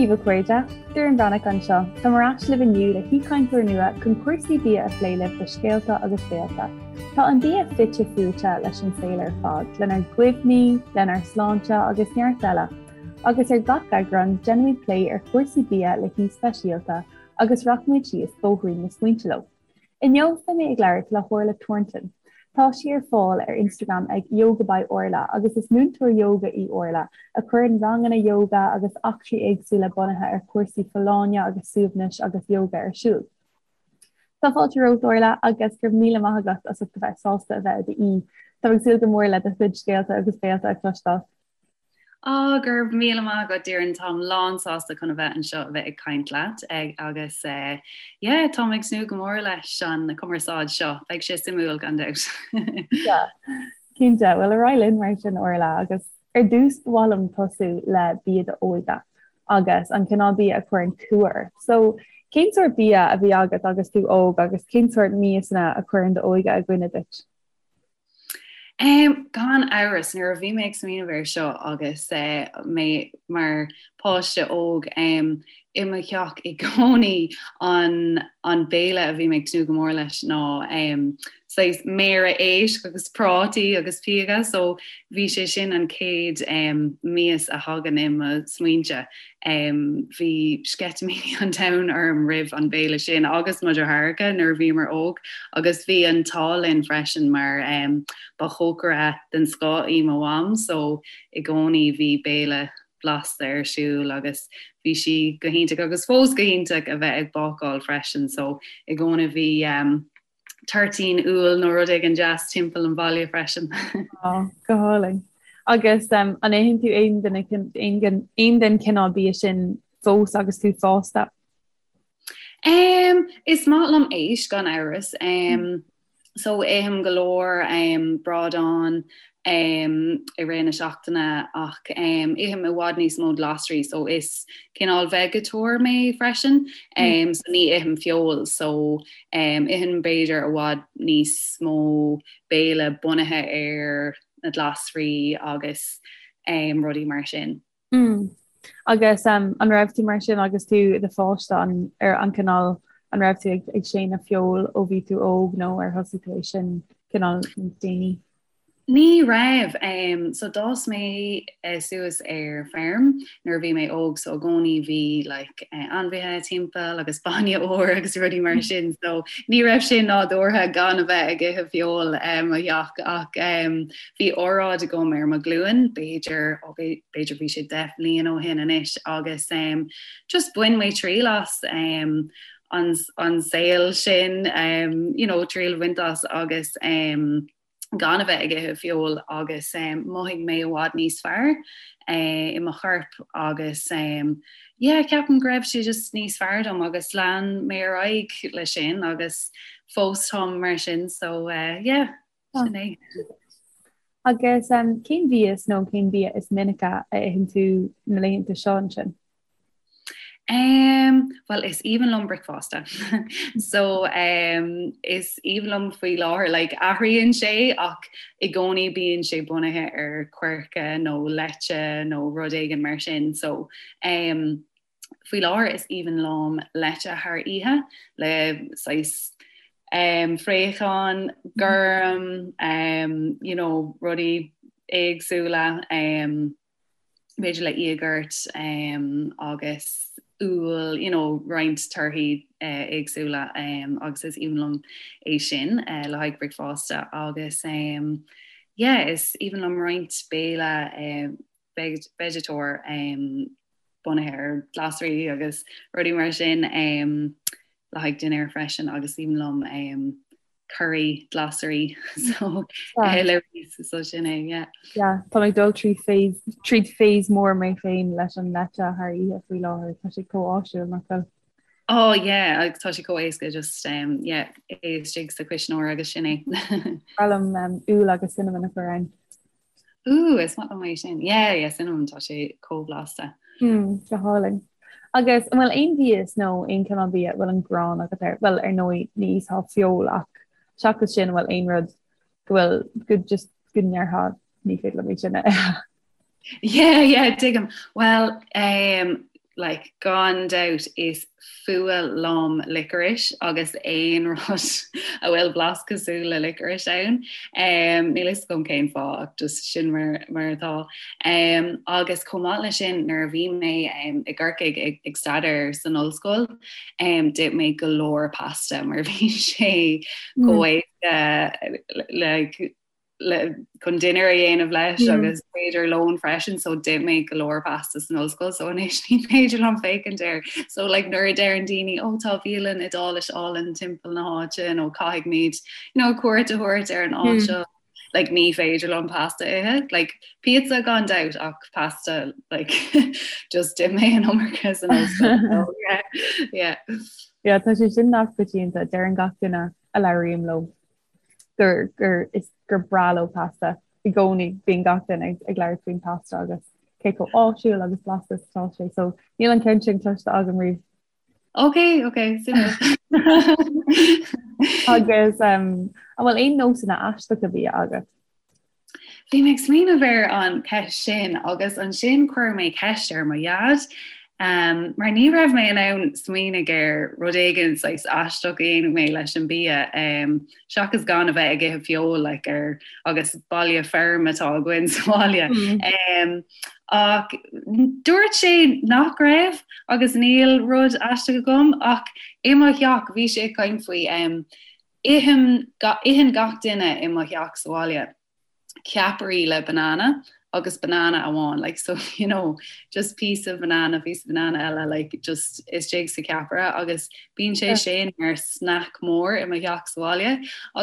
Dia daoibh a chairde, Doireann Bhreathnach anseo. Táim ar ais libh inniu le haoichainteoir nua chun cúrsaí bia a phlé libh do Scéalta agus Béalta. Tá an bia fite fuaite leis an saol ar fad, lenár gcuimhní, lenár sláinte agus neart eile. Agus ar gach eagrán, déanfaimid plé ar chúrsaí bia le haoi speisialta agus rachaimid síos bóithrín na smaointe leo. Inniu beidh mé ag labhairt le hOrla Thornton. Tá sí ar fáil ar Instagram ag Yoga by Orla agus is múinteoir ióga í Orla a chuireann ranganna ióga agus eachtraí éagsúla bunaithe ar chúrsaí folláine agus suaimhnis agus ióga ar siúl. Tá fáilte romhat Orla agus go raibh míle maith agat as ucht a bheith sásta a bheith i d'aoi. Táim ag súil go mór le do chuid scéalta agus béalta a chloisteáil. Á, go raibh míle maith agat, Doireann, táim lán sásta chun a bheith anseo a bheith ag caint leat agus yeah, táim ag tnúth go mór leis an cumarsáid seo, beidh sé suimiúil gan dabht. Yeah, cinnte. Bhuel, ar aghaidh linn mar sin, Orla, agus ar dtús ba mhaith liom tosú le bia d'óige agus an cineál bia a chuireann cumha ort. So, cén sórt bia a bhí agat agus tú óg agus cén sórt miasanna a chuireann d'óige i gcuimhne duit? Gan amhras, nuair a bhí mé ag smaoineamh air seo agus mé mar pháiste óg, i mo theach i gcónaí an an béile a bhí mé ag tnúth go mór leis ná saghas méara éisc agus prátaí agus píoga so bhí sé sin an chéad mias a thagann i mo smaointe. Bhí sceitimíní an domhain orm roimh an bhéile sin agus mo dheartháireacha nuair a bhíomar óg agus bhí an t-ádh linn freisin mar ba chócaire den scoth í mo mham so i gcónaí bhí béile blasta ar siúl agus bhí sí go hiontach agus fós go hiontach a bheith ag bácáil freisin so i gcónaí bhí toirtín úll nó rud éigin deas timpeall an bhaile freisin. Á, go hálainn. Agus an itheann tú aon duine aon den chineál bia sin fós agus tú fásta? Um, is maith liom éisc gan amhras. Um, so ithim go leor um, bradán um, i rith na seachtaine ach um, ithim i bhfad níos mó glasraí so is cineál veigeatóir mé freisin um, so ní ithim feoil so um, ithim b'fhéidir i bhfad níos mó béile bunaithe ar na glasraí agus um, rudaí mar sin. Mm. Agus um, an raibh tú mar sin agus tú i do pháiste an ar an cineál an raibh tú ag, ag séanadh feoil ó bhí tú óg nó ar thosaigh tú é sin cineál níos déanaí? Ní raibh. Um, so d'fhás mé uh, suas ar feirm nuair a bhí mé óg so i gcónaí bhí like, uh, ainmhithe timpeall agus bainne úr agus rudaí mar sin so ní raibh sé nádúrtha gan a bheith ag ithe feoil um, i mo theach ach um, Bhí óráid agam ar mo ghlúin, b'fhéidir, ó b'fhéidir bhí sé 10 bhliain ó shin anois agus um, just bhain mé triail as um, an, an saol sin, um, you know, triail a bhaint as agus um, gan a bheith ag ithe feoil agus um, mhothaigh mé i bhfad níos fearr uh, i mo chorp agus um, yeah, ceapaim go raibh sé just níos fearr dom agus lean mé ar aghaidh le sin agus fós táim mar sin so uh, yeah. Sin é. Agus cén mhias nó cén bia is minice a itheann tú na laethanta seo ansin? Um, well is aoibhinn liom bricfeasta. so um, is aoibhinn liom faoi láthair like, athraíonn sé ach i gcónaí bíonn sé bunaithe ar coirce nó leite nó rud éigin mar sin. So um, Faoi láthair is aoibhinn liom leite thar oíche le saghas um, fraochán gorm, um, you know, rudaí éagsúla, um, b'fhéidir le íogart um, agus úll, you know, roinnt torthaí uh, éagsúla um, agus is aoibhinn liom é sin uh, le haghaidh bricfeasta agus um, yeah, is aoibhinn liom roinnt béile uh, veigeatóir um, bunaithe ar ghlasraí agus rudaí mar sin um, le haghaidh dinnéar freisin agus is aoibhinn liom um, curry glasraí so eh, le rís so sin é yeah. Yeah, tá mé ag dul trí phase tríd phase mór mé féin leis an leite thar oíche faoi láthair tá sé chomh áisiúil nach bhfuil. Oh yeah, agus tá sé chomh éasca just um, yeah, é istigh sa chuisneoir agus sin é. Ba mhaith liom um, úll agus cinnamon a chur ann. Ooh, is maith liom é sin. Yeah, yeah, cinnamon tá sé chomh blasta. Mm, go hálainn. Agus an bhfuil aon mhias nó aon cineál bia a bhfuil an ghráin agat air? Bhuel, ar ndóigh, ní íosfá feoil ach seachas sin, an bhfuil aon rud go bhfuil go just go ndéarfá ní féidir liom é sin a ithe? Yeah, yeah, tuigim. Well, um, Like, gan dabht is fuath liom licorice agus aon rud a bhfuil blas cosúil le licorice ann. Um, níl fhios agam cén fáth ach just sin mar, mar atá. Um, agus chomh maith leis sin nuair a bhí mé um, i gCorcaigh ag, ag staidéar san ollscoil, um, d'ith mé go leor pasta mar bhí sé chomh éasca like, le chun dinnéar a dhéanamh leis agus b'fhéidir lón freisin so d'ith mé go leor pasta san ollscoil so anois ní féidir liom féachaint air so like nuair a deireann daoine ó tá bialann Iodáilis álainn timpeall na háite nó caithfimid you know cuairt a thabhairt ar an áit seo like ní féidir liom pasta a ithe like pizza gan dabht ach pasta like just d'ith mé an iomarca san ollscoil so yeah yeah. Yeah tá sé sin neamhchoitianta deireann gach duine a labhraím leo. gur gur is gur breá leo pasta i gcónaí bíonn gach duine ag ag labhairt faoin pasta agus cé chomh áisiúil agus blasta is atá sé so níl an ceann sin cloiste agam riamh. Ok ok suimiúil. Agus um, an bhfuil aon nósanna aisteacha bia agat? Bhí mé ag smaoineamh ar an cheist sin agus ansin chuir mé ceist ar mo dhaid um, mar ní raibh mé in ann smaoineamh ar rud éigin saghas aisteach a dhéanadh mé leis an bia um, seachas gan a bheith ag ithe feoil like, ar agus baile feirm atá againn sa bhaile. Mm. Um, ach dúirt sé nach raibh agus níl rud aisteach agam ach i mo theach bhí sé ag caint faoi um, Itheann gach duine i mo theach sa bhaile ceapairí le banana agus banana amháin like so you know just piece of banana piece of banana eile like just istigh sa ceapaire agus bíonn sé sin mar snack mór i mo theach sa bhaile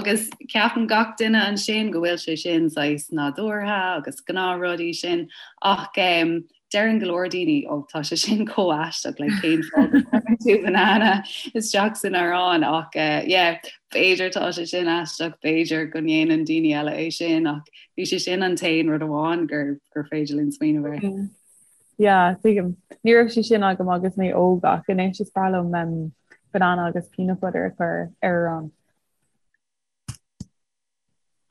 agus ceapann gach duine ansin go bhfuil sé sin saghas nádúrtha agus gnáthrud é sin ach um, Deireann go leor daoine, ó tá sé sin chomh aisteach, like cén fáth go gcuireann tú banana isteach san arán ach eh, yeah, b'fhéidir tá sé sin aisteach, b'fhéidir go ndéanann daoine eile é sin ach bhí sé sin an t-aon rud amháin gur gur féidir linn smaoineamh air. Mm. Yeah, tuigim. Ní raibh sé sin agam agus mé óg ach anois is breá liom um, banana agus peanut butter a chur ar arán.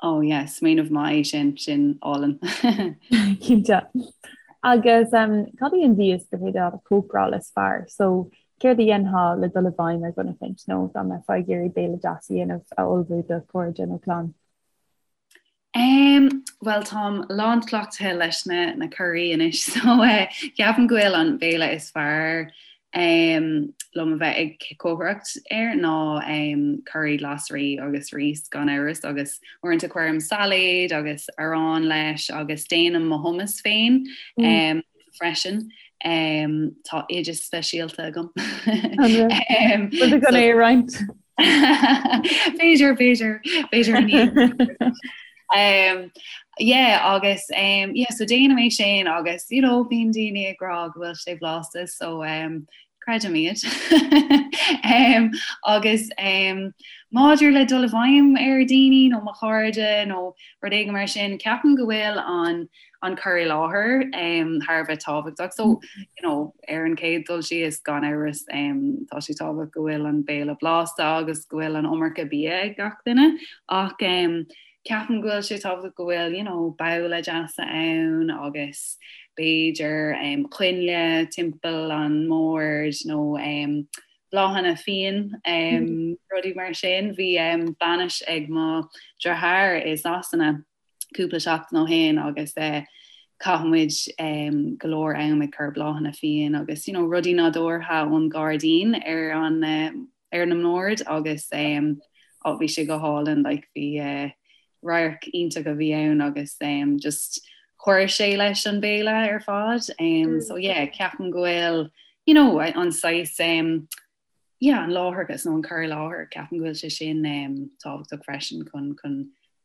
Oh yeah, smaoineamh maith é sin, sin álainn. Cinnte. Agus um, cad í an mhias gur féidir leat a chócaráil is fearr? So, céard a dhéanfá le dul i bhfeidhm ar dhuine éicint nó dá mbeifeá ag iarraidh béile deas a dhéanamh a ullmhú do chairde nó clann? Um, well táim lánchleachtaithe leis na, na curaí anois, so uh, ceapaim go bhfuil an béile is fearr um, liom a bheith ag cócaireacht air ná um, curaí glasraí agus rís gan amhras agus uaireanta cuirim sailéad agus arán leis agus déanaim mo hummus féin mm. um, freisin. Um, tá oideas speisialta agam. um, so, é roinnt. B'fhéidir b'fhéidir b'fhéidir Um, yeah, agus um, yeah, so déanaim é sin agus you know, bíonn daoine ag rá go bhfuil sé blasta so um, creidim iad. um, agus um, maidir le dul i bhfeidhm ar daoine nó mo chairde nó rud éigin mar sin, ceapaim go bhfuil an an cur i láthair um, thar a bheith tábhachtach. So you know, ar an chéad dul síos gan amhras um, tá sé tábhachtach go bhfuil an béile blasta agus go bhfuil an iomarca bia ag gach duine ach um, ceapaim go bhfuil sé tábhachtach go bhfuil you know, babhla deasa ann agus b'fhéidir um, coinnle timpeall an mbord nó um, bláthanna fiáin um, rudaí mar sin. Bhí um, bainis ag mo dheartháir i Sasana cúpla seachtain ó shin agus eh, chaith muid um, go leor am ag cur bláthanna fiáin agus you know, rudaí nádúrtha ón gairdín ar an uh, ar na mboird agus um, oh, bhí sé go hálainn like, bhí uh, radharc iontach a bhí ann agus um, just chuir sé leis an béile ar fad um, mm. so yeah, ceapaim go bhfuil you know, an saghas um, yeah, an láithreachas nó an cur i láthair, ceapaim go bhfuil sé sin um, tábhachtach freisin chun chun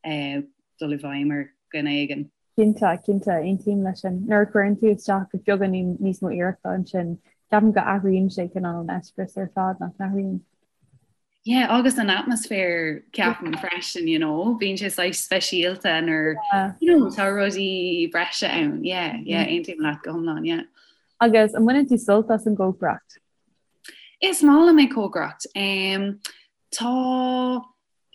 uh, dul i bhfeidhm ar dhuine éigin. Cinnte, cinnte, aontaím leis sin. Nuair a chuireann tú isteach beagáinín níos mó iarrachta ansin, ceapaim go athraíonn sé cineál an eispéireas ar fad nach n-athraíonn. Yeah, agus an atmaisféar ceapaim freisin, you know, bíonn sé saghas speisialta nuair yeah. you know, tá rudaí breise ann. Yeah, yeah, mm. aontaím leat go hiomlán, yeah. Agus an mbaineann tú sult as an gcócaireacht? Is maith liom ag cócaireacht. Um, tá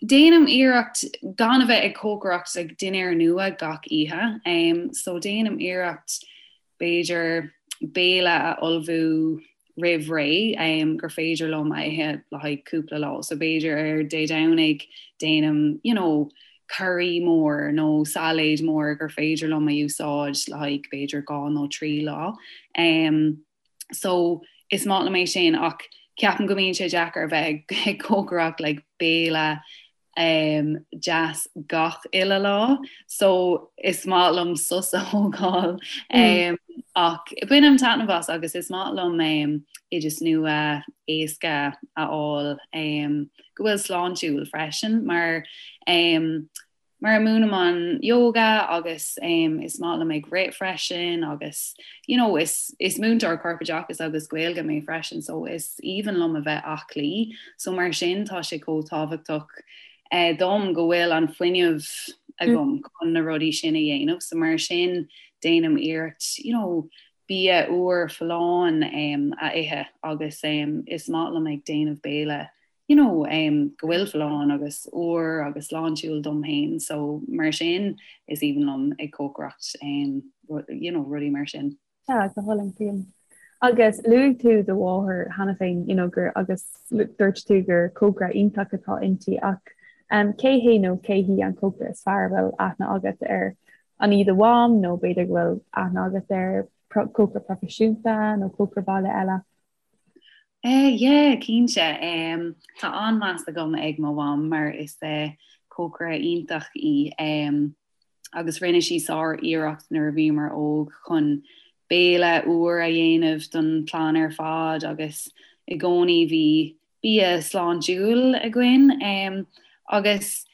déanaim iarracht gan a bheith ag cócaireacht ag dinnéar nua gach oíche. Um, so déanaim iarracht b'fhéidir. béile a ullmhú roimh ré gur féidir liom a ithe le haghaidh cúpla lá. So b'fhéidir ar Dé Domhnaigh déanaim you know, curry mór nó sailéid mór gur féidir liom a úsáid le haghaidh b'fhéidir 2 nó 3 lá. Um, so is maith liom é sin ach ceapaim go mbíonn sé deacair a bheith ag cócaireacht like, béile um, deas gach uile lá, so is maith liom sos a thógáil um, ach bainim taitneamh as agus is maith liom um, oideas nua éasca a fháil um, go bhfuil sláintiúil freisin mar um, mar múinim an yoga agus um, is maith liom ag rith freisin agus you know, is, is múinteoir corpoideachais agus Gaeilge mé freisin so is aoibhinn liom a bheith aclaí so mar sin tá sé chomh tábhachtach eh, dom go bhfuil an fuinneamh agam chun na rudaí sin a dhéanamh so mar sin déanaim iarracht you know, bia úr folláin um, a ithe agus um, is maith liom ag déanamh béile you know, um, go bhfuil folláin agus úr agus sláintiúil dom féin, so mar sin is aoibhinn liom ag cócaireacht, um, you know, rudaí mar sin. Yeah, go hálainn tuigim. Agus luaigh tú do mháthair cheana féin, you know, gur agus dúirt tú gur cócaire iontach atá inti ach um, cé hé nó cé hí an cócaire is fearr a bhfuil aithne agat air? An í do mham nó b'fhéidir go bhfuil aithne agat ar cócaire proifisiúnta nó cócaire baile eile? Eh yeah, cinnte. Em, tá an-mheas agam ag mo mham mar is eh, cócaire iontach í. Em, agus rinne sí sár-iarracht nuair a bhíomar óg chun béile úr a dhéanamh don chlann ar fad agus i gcónaí bhí bia sláintiúil againn. Em, agus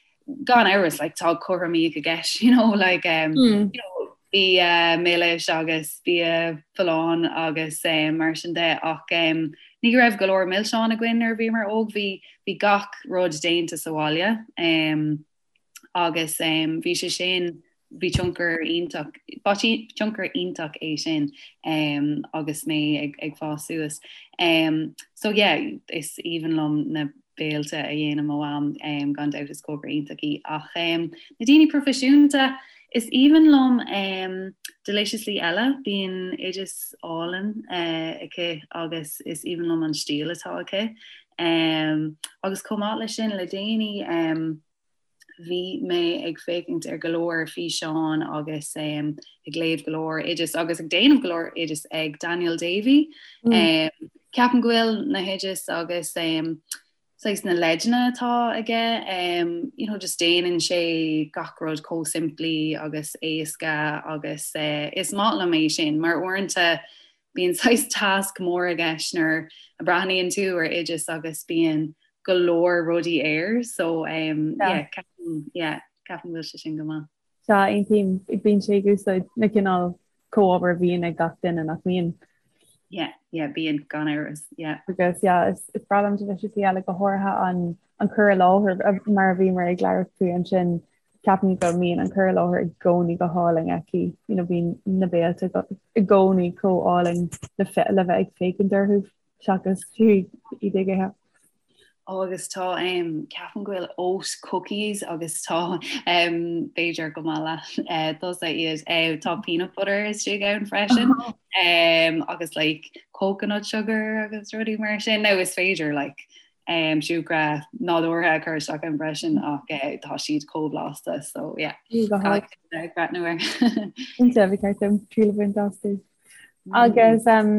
gan amhras like tá cothromaíocht i gceist you know like um, mm. you know, bia milis agus bia folláin agus um, mar sin de ach um, ní raibh go leor milseán againn nuair a bhíomar óg bhí bhí gach rud déanta sa bhaile um, agus um, bhí sé sin bhí tionchar iontach ba tionchar iontach é sin um, agus mé ag, ag fás suas. Um, so yeah, is aoibhinn liom na béilte a dhéanann mo mham um, gan dabht is cócaire iontach í ach um, na daoine proifisiúnta is aoibhinn liom um, Deliciously Ella bíonn oideas álainn uh, aici agus is aoibhinn liom an stíl atá aici. Um, agus chomh maith leis sin le déanaí um, bhí mé ag féachaint ar go leor físeán agus um, ag léamh go leor oideas agus ag déanamh go leor oideas ag Daniel Davey. Mm. Um, ceapaim go bhfuil na hoideas agus um, saghas na leideanna atá aige, um, you know, just déanann sé gach rud chomh simplí agus éasca agus uh, is maith liom é sin mar uaireanta bíonn saghas tasc mór i gceist nuair a breathnaíonn tú ar oideas agus bíonn go leor rudaí air so um, yeah. ceapaim yeah, ceapaim go bhfuil sé sin go maith. Sea, aontaím, bíonn sé ag úsáid na cineál comhábhair a bhíonn ag gach duine nach mbíonn. Yeah, yeah, bíonn gan amhras, yeah. Agus yeah, is, is breá liom Deliciously Ella go háirithe an, an cur i láthair mar a bhíomar ag labhairt faoi ansin Ceapaim go mbíonn an cur i láthair i gcónaí go hálainn aici, you know, bíonn na béilte i gcónaí chomh álainn le le bheith ag féachaint orthu seachas fiú iad ag ithe. Ó agus tá um, ceapaim go bhfuil oat cookies agus tá um, b'fhéidir go maith leat uh, tusa iad uh, tá peanut butter istigh ann freisin um, agus like coconut sugar agus rudaí mar sin nó is féidir like um, siúcra nádúrtha a chur isteach ann freisin ach eh, tá siad chomh blasta so yeah. Ag breathnú air. Cinnte, ba cheart dom triail a bhaint astu. Agus um,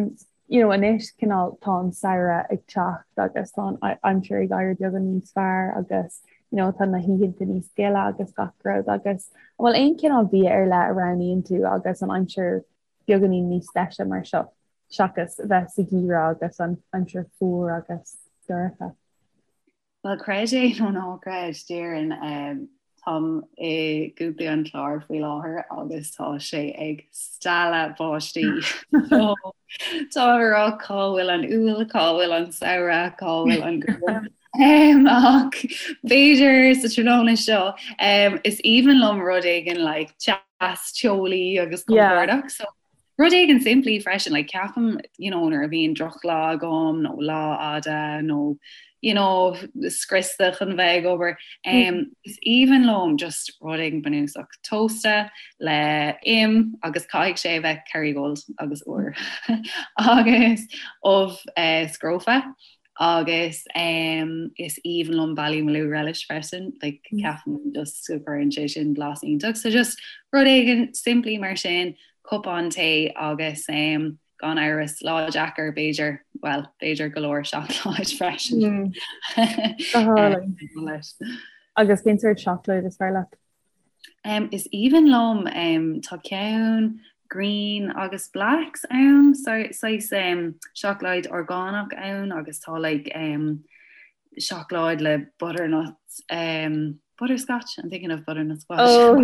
you know, anois cineál tá an samhradh ag teacht agus tá an aimsir ag éirí beagán níos fearr agus you know, tá na hoícheanta níos gile agus gach rud agus an bhfuil aon cineál bia ar leith a roghnaíonn tú agus an aimsir beagáinín níos deise mar seo seachas bheith sa gheimhreadh agus an aimsir fuar agus dorcha. Bhuel, creid é nó ná creid, déarfainn, táim i gContae an Chláir faoi láthair agus tá sé ag stealladh báistí. So, táim ag rá cá bhfuil an Iúil, cá bhfuil an samhradh, cá bhfuil an ghrian. Ach b'fhéidir sa tráthnóna seo, is aoibhinn liom rud éigin like teas teolaí agus compordach. So rud éigin simplí freisin, like ceapaim you know, nuair a bhíonn drochlá agam nó lá fhada nó. you know, scriosta chun bheith ag obair. Um, is aoibhinn liom just rud éigin bunúsach tósta le im agus caithfidh sé a bheith Kerrygold agus úr agus ubh uh, scrofa agus um, is aoibhinn liom Ballymaloe relish freisin, like, mm. ceapaim just go gcuireann sé sin blas iontach. So just rud éigin simplí mar sin, cupán tae agus um, Gan amhras, lá deacair, b'fhéidir, bhuel, b'fhéidir go leor seacláid freisin. Go hálainn. Agus cén sórt seacláid is fearr leat? Um, is aoibhinn liom, um, tá ceann green agus blacks ann, saghas um, seacláid orgánach ann agus tá like, um, seacláid le butternut um, butterscotch I'm thinking of butternut squash oh,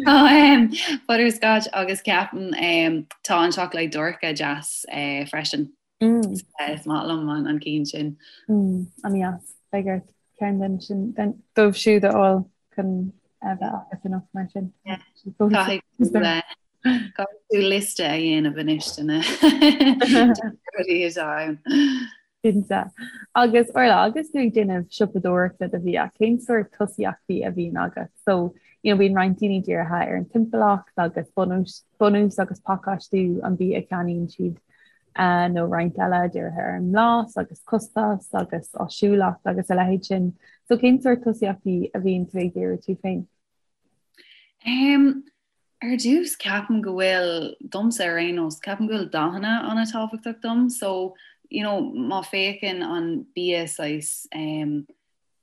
um, butterscotch agus ceapaim um, tá an seacláid dorcha deas uh, freisin mm. uh, is maith liom an, an ceann sin mm, an-deas beidh ort ceann den sin den dóibh siúd a fháil chun a bheith agat anocht mar sin. Caithfidh tú liosta a dhéanamh anois de na rudaí atá ann. Cinnte. Agus Orla, agus tú ag déanamh siopadóireachta do bhia, cén sórt tosaíochtaí a bhíonn agat? So, you know, bíonn roinnt daoine dírithe ar an timpeallacht agus bunús, bunús agus pacáistiú an bhia a cheannaíonn siad, uh, nó roinnt eile dírithe ar an mblas agus costas agus áisiúlacht agus a leithéid sin. So, cén sórt tosaíochtaí a bhíonn tú ag díriú tú féin? Um, Ar dtús, ceapaim go bhfuil, domsa ar aon nós, ceapaim go bhfuil dathanna an-tábhachtach dom. So, you know, má féachann an bia saghas, um,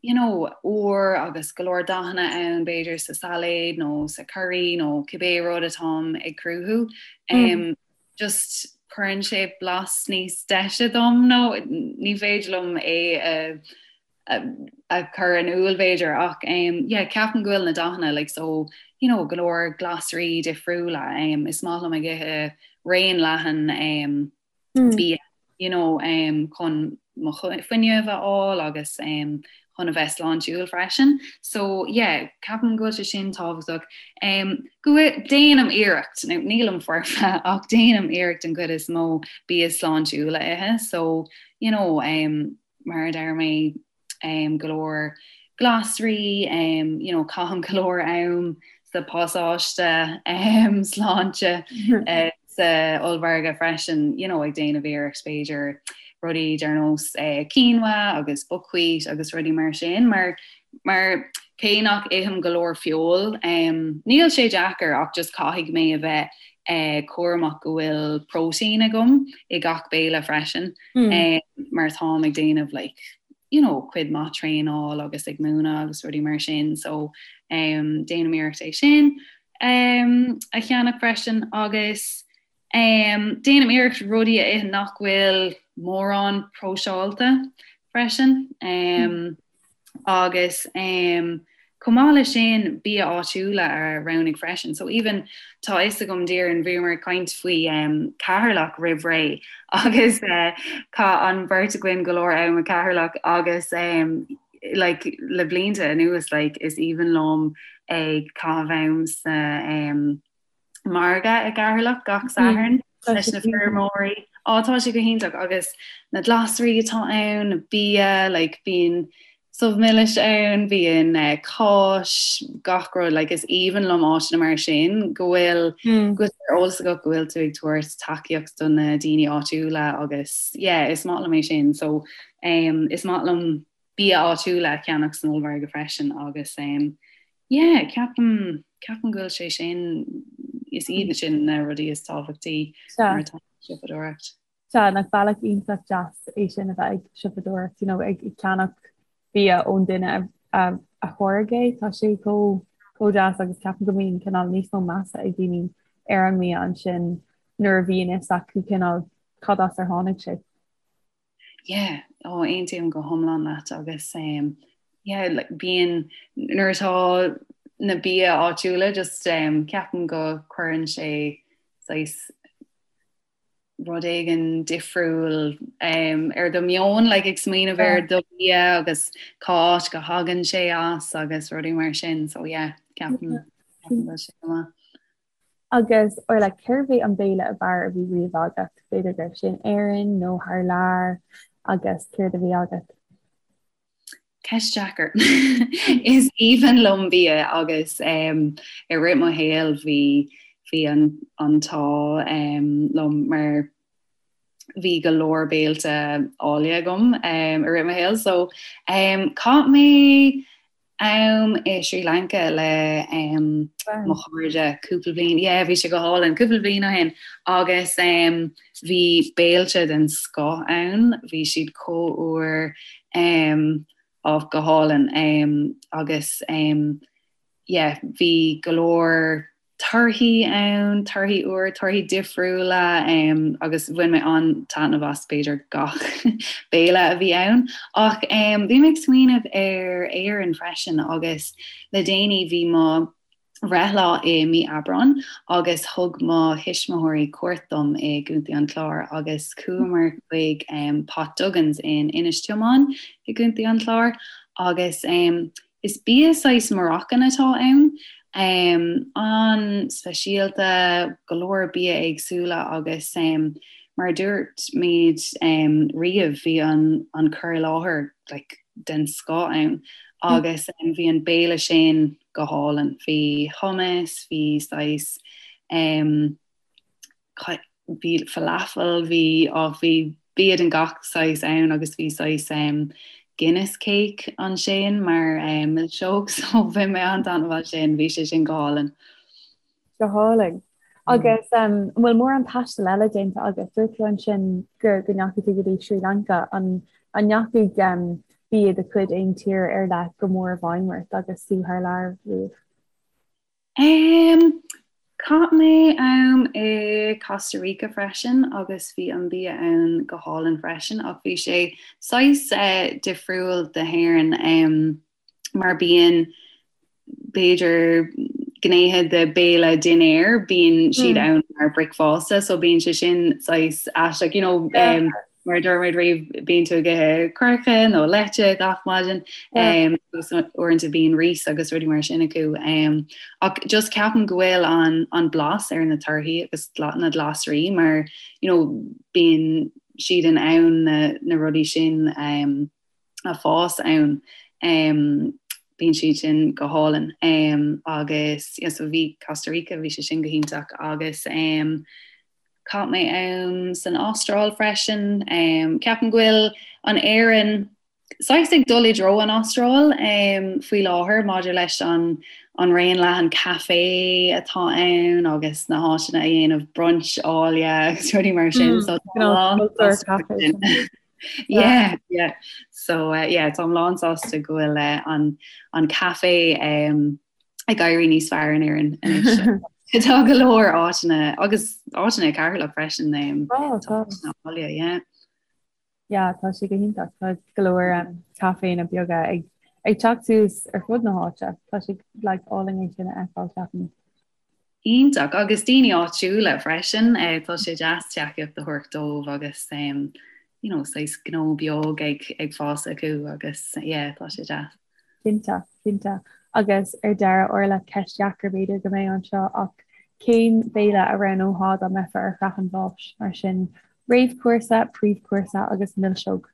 you know, úr agus go leor dathanna ann, b'fhéidir sa sailéad nó sa curry nó cibé rud atáim ag cruthú, um, just cuireann sé blas níos deise dom nó ní féidir liom é a a chur in iúl b'fhéidir ach um, yeah, ceapaim go bhfuil na dathanna like, so, you know, go leor glasraí difriúla um, is maith liom ag ithe raon leathan um, mm. bia you know, um, chun mo fuinneamh a fháil agus um, chun a bheith sláintiúil freisin. So yeah, ceapaim go bhfuil sé sin tábhachtach. Um, go déanaim iarracht, nó nílim foirfe ach déanaim iarracht an chuid is mó bia sláintiúil a ithe, so you know, um, mar a deir mé, go leor glasraí, you know, caithim go leor am sa pasáiste sláinte sa ollmhargadh freisin, you know, ag déanamh iarracht b'fhéidir rudaí ar nós quinoa agus buckwheat agus rudaí mar sin, mar mar cé nach ithim go leor feoil, níl sé deacair ach just caithfidh mé a bheith cúramach go bhfuil próitéin agam i gach béile freisin. mar táim ag déanamh like, you know, cuid maith traenáil agus ag múineadh agus rudaí mar sin so um, déanaim iarracht é sin um, a cheannach freisin agus um, déanaim iarracht rudaí a ithe nach bhfuil mórán próiseáilte freisin. Um, Agus chomh maith leis sin, bia áitiúla a roghnú freisin. So even tá a fhios agam Doireann, bhíomar ag caint faoi Ceatharlach roimh ré agus chaith an bheirt againn go leor am i Ceatharlach agus like le blianta anuas like is aoibhinn liom ag caitheamh am sa margadh i gCeatharlach gach Satharn leis na feirmeoirí. Á tá sé go hiontach agus na glasraí atá ann, na bia, like bíonn subh milis ann, bíonn eh, cáis, gach rud, like is aoibhinn liom áiteanna mar sin go bhfuil mm. go bhfuil eolas agat go bhfuil tú ag tabhairt tacaíocht do na daoine áitiúla agus yeah, is maith liom é sin so um, is maith liom bia áitiúla a cheannach san ollmhargadh freisin agus um, yeah, ceapaim, ceapaim go bhfuil sé sin, is iad sin na rudaí is tábhachtaí nuair atá siopadóireacht. Sea, nach bealach iontach deas é sin a bheith ag siopadóireacht, you know, ag ceannach bia ón duine a, a, a tháirg é, tá sé chomh chomh deas agus ceapaim go mbíonn cineál níos mó measa ag daoine ar an mbia ansin nuair a bhíonn fhios acu cineál cad as ar tháinig sé. Yeah, ó aontaím go hiomlán leat agus um, yeah, like, bíonn nuair atá na bia áitiúla just um, ceapaim go cuireann sé saghas rud éigin difriúil um, ar do meon like, ag smaoineamh ar do bia agus cá háit go thagann sé as agus rudaí mar sin so yeah, ceapaim ceapaim go bhfuil sé go maith. Agus, Orla, cérbh é an béile ab fhearr a bhí riamh agat? B'fhéidir go raibh sé in Éirinn nó thar lear agus céard a bhí agat? Ceist deacair. Is aoibhinn liom bia agus um, i rith mo shaoil bhí bhí an an t-ádh um, liom mar bhí go leor béilte áille agam um, i rith mo shaoil. So um, chaith mé am i Sri Lanka le um, mo chairde cúpla bliain, yeah, bhí sé go hálainn cúpla bliain ó shin agus um, bhí béilte den scoth ann, bhí siad chomh úr um, á go hálainn um, agus um, yeah, bhí go leor torthaí ann, torthaí úr, torthaí difriúla agus bhain mé an-taitneamh as b'fhéidir gach béile a bhí ann. Ach bhí mé ag smaoineamh ar Éirinn freisin agus le déanaí bhí mo bhreithlá i mí Aibreáin agus thug mo thuismitheoirí cuairt dom i gContae an Chláir agus chuamar chuig Pot Duggan's in Inis Tiomáin i gContae an Chláir agus Is bia saghas Moroccan atá ann. An-speisialta, go leor bia éagsúla agus mar a dúirt muid riamh bhí an cur i láthair like den scoth ann agus bhí an béile sin go hálainn. Bhí hummus, bhí saghas bhí falafel, bhí, á, bhí bia den gach saghas ann agus bhí saghas um, Guinness cake ansin mar um, milseog so bhain mé an-taitneamh as sin, bhí sé sin go hálainn. Go hálainn. Agus um, an bhfuil mórán taistil eile déanta agat? Dúirt tú ansin go go ndeachaigh tú go dtí Sri Lanka an an ndeachaigh um, bia de chuid aon tír ar leith go mór i bhfeidhm ort agus tú thar lear riamh? Em, chaith mé am i Costa Rica freisin agus bhí an bia ann go hálainn freisin ach bhí sé saghas eh, difriúil de hÉirinn em, mar bíonn b'fhéidir gnéithe de béile dinnéir bíonn siad mm. ann mar bricfeasta so bíonn sé sin saghas aisteach you know, um, Mar a dúirt muid riamh, bíonn tú ag ithe coirce nó leite gach maidin, agus uaireanta bíonn rís agus rudaí mar sin acu. Ach just ceapaim go bhfuil an an blas ar na torthaí agus na glasraí mar you know bíonn siad in ann na na rudaí sin a fás ann. Bíonn siad sin go hálainn. Agus yeah so bhí Costa Rica, bhí sé sin go hiontach agus Chaith mé am san Astráil freisin. Ceapaim go bhfuil an Éirinn saghas ag dul i dtreo an Astráil faoi láthair maidir leis an an raon leathan caife atá ann agus na háiteanna a dhéanamh brunch áille agus rudaí mar sin. So Yeah, yeah. So uh, yeah, táim lán sásta go bhfuil uh, an, an caife um, ag éirí níos fearr in Éirinn anois. Tá go leor áiteanna agus áiteanna i Ceatharlach freisin um, tá áille, yeah. Yeah, tá sé go hiontach Tá go leor um, caiféanna beaga ag ag teacht suas ar fud na háite. Tá sé like, álainn é sin a fheiceáil ceapaim. Iontach agus daoine áitiúla freisin, eh, tá sé deas tacaíocht a thabhairt dóibh agus um, you know, saghas gnó beag ag, ag fás acu agus yeah, tá sé deas. Cinnte, cinnte. Agus ar deireadh, Orla, ceist dheacair b'fhéidir go mbeidh anseo ach cén béile a roghnófá dá mbeifeá ar shraith an bháis? Mar sin, réamhchúrsa, príomhchúrsa agus milseog.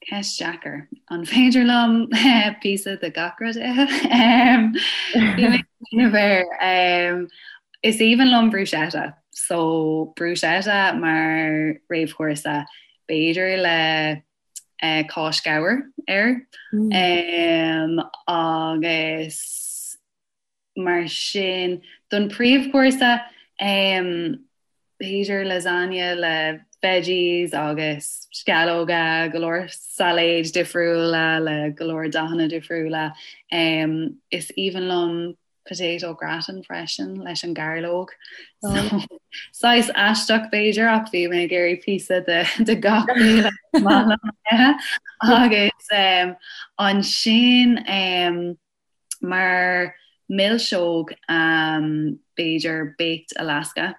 Ceist deacair. An féidir liom píosa de gach rud a ithe? Bhí mé ag smaoineamh air. Is aoibhinn liom bruschetta. So bruschetta mar réamhchúrsa, b'fhéidir le cáis ghabhair air. Agus mar sin don príomhchúrsa, b'fhéidir lasagne le veggies agus sceallóga, go leor sailéid difriúla le go leor dathanna difriúla. Is aoibhinn liom potato gratin freisin leis an gairleog. So, saghas aisteach b'fhéidir ach bhí mé ag iarraidh píosa de, de gach béile maith liom a ithe. Agus um, ansin um, mar milseog um, b'fhéidir Baked Alaska.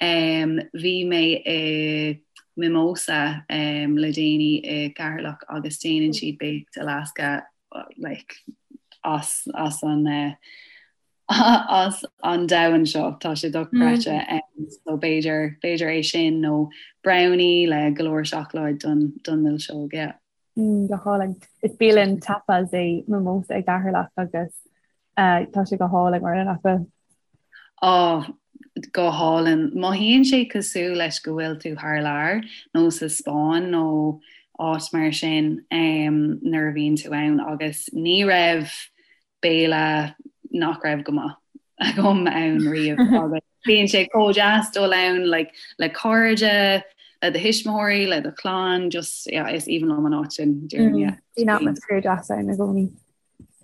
Um, bhí mé i Mimosa um, le déanaí i gCeatharlach agus déanann siad Baked Alaska like, as, as an uh, as an domhan seo tá sé dochreidte mm. um, so b'fhéidir b'fhéidir é sin nó brownie le go leor seacláid don don milseog yeah. Mm, go hálainn. Is bialann tapas é Mimosa i gCeatharlach agus uh, tá sé go hálainn mar nach bhfuil. Á, go hálainn. Mothaíonn sé cosúil leis go bhfuil tú thar lear nó sa Spáinn nó áit mar sin um, nuair a bhíonn tú ann agus ní raibh béile nach raibh go maith agam ann riamh agus bíonn sé chomh deas dul ann like, le cairde, le do thuismitheoirí, le do chlann, just yeah, is aoibhinn liom an áit sin déarfainn, yeah. Bíonn atmaisféar deas ann i gcónaí.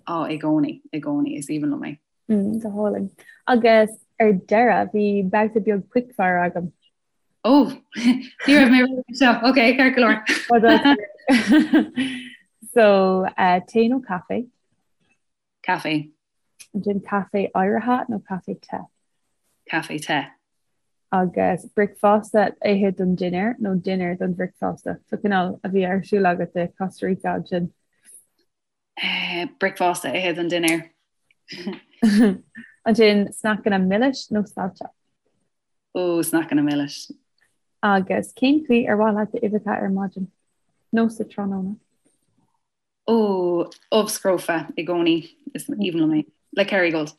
Á, i gcónaí, i gcónaí, is aoibhinn liom é. Mm, go hálainn. Agus ar deireadh, bhí babhta beag quickfire agam. Ó, ní raibh mé réidh seo. Ok, ceart go leor. So, uh, tae nó caife? Caife. Ansin caife oighrithe nó caife te? Caife te. Agus bricfeasta a ithe don dinnéar nó dinnéar don bhricfeasta? So cineál a bhí ar siúl agat i Costa Rica ansin. Eh, bricfeasta a ithe don dinnéar. Ansin sneaiceanna milis nó saillte? Ó, sneaiceanna milis. Agus cén chaoi ar mhaith leat d'uibheacha ar maidin? Nó sa tráthnóna? Ó, ubh scrofa i gcónaí, is aoibhinn liom é. Le Kerrygold.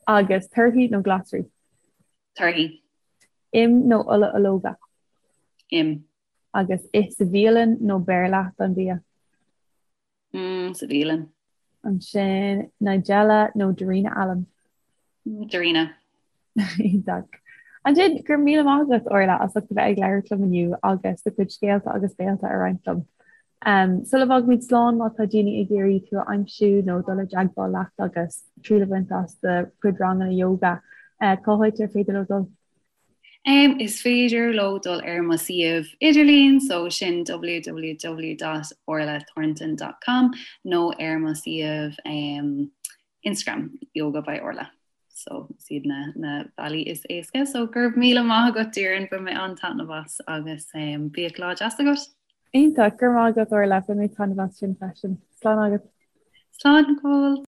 Agus torthaí nó glasraí? Torthaí. Im nó ola ológa? Im. Agus ith sa bhialann nó beir leat an bia? Mm, sa bhialann. Ansin Nigella nó Darina Allen? Darina. Iontach. Ansin, go raibh míle maith agat, Orla, as ucht a bheith ag labhairt liom inniu agus do chuid scéalta agus béalta a roinnt liom. Um, sula bhfágaimid slán má tá daoine ag iarraidh tú a aimsiú nó dul i dteagmháil leat agus triail a bhaint as do chuid ranganna yoga, uh, cá háit ar féidir leo dul? Um, is féidir leo dul ar mo suíomh idirlín, so sin www dot orlathornton dot com nó ar mo suíomh um, Instagram, Yoga by Orla. So is iad na, na bealaí is éasca. So go raibh míle maith agat Doireann, bhain mé an-taitneamh as agus um, bíodh lá deas agat. Iontach, go raibh maith agat Orla, bhain mé taitneamh as sin freisin. Slán agat. Slán go fóill.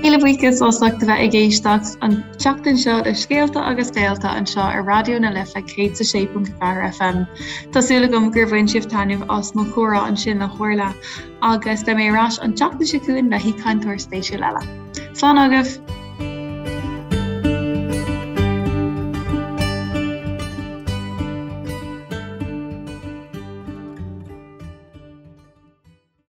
Míle buíochas as ucht a bheith ag éisteacht an tseachtain seo le Scéalta agus Béalta anseo ar Raidió na Life 106.4 FM. Tá súil agam gur bhain sibh taitneamh as mo chomhrá ansin le hOrla agus beidh mé ar ais an tseachtain seo chugainn le haoichainteoir spéisiúil eile. Slán agaibh!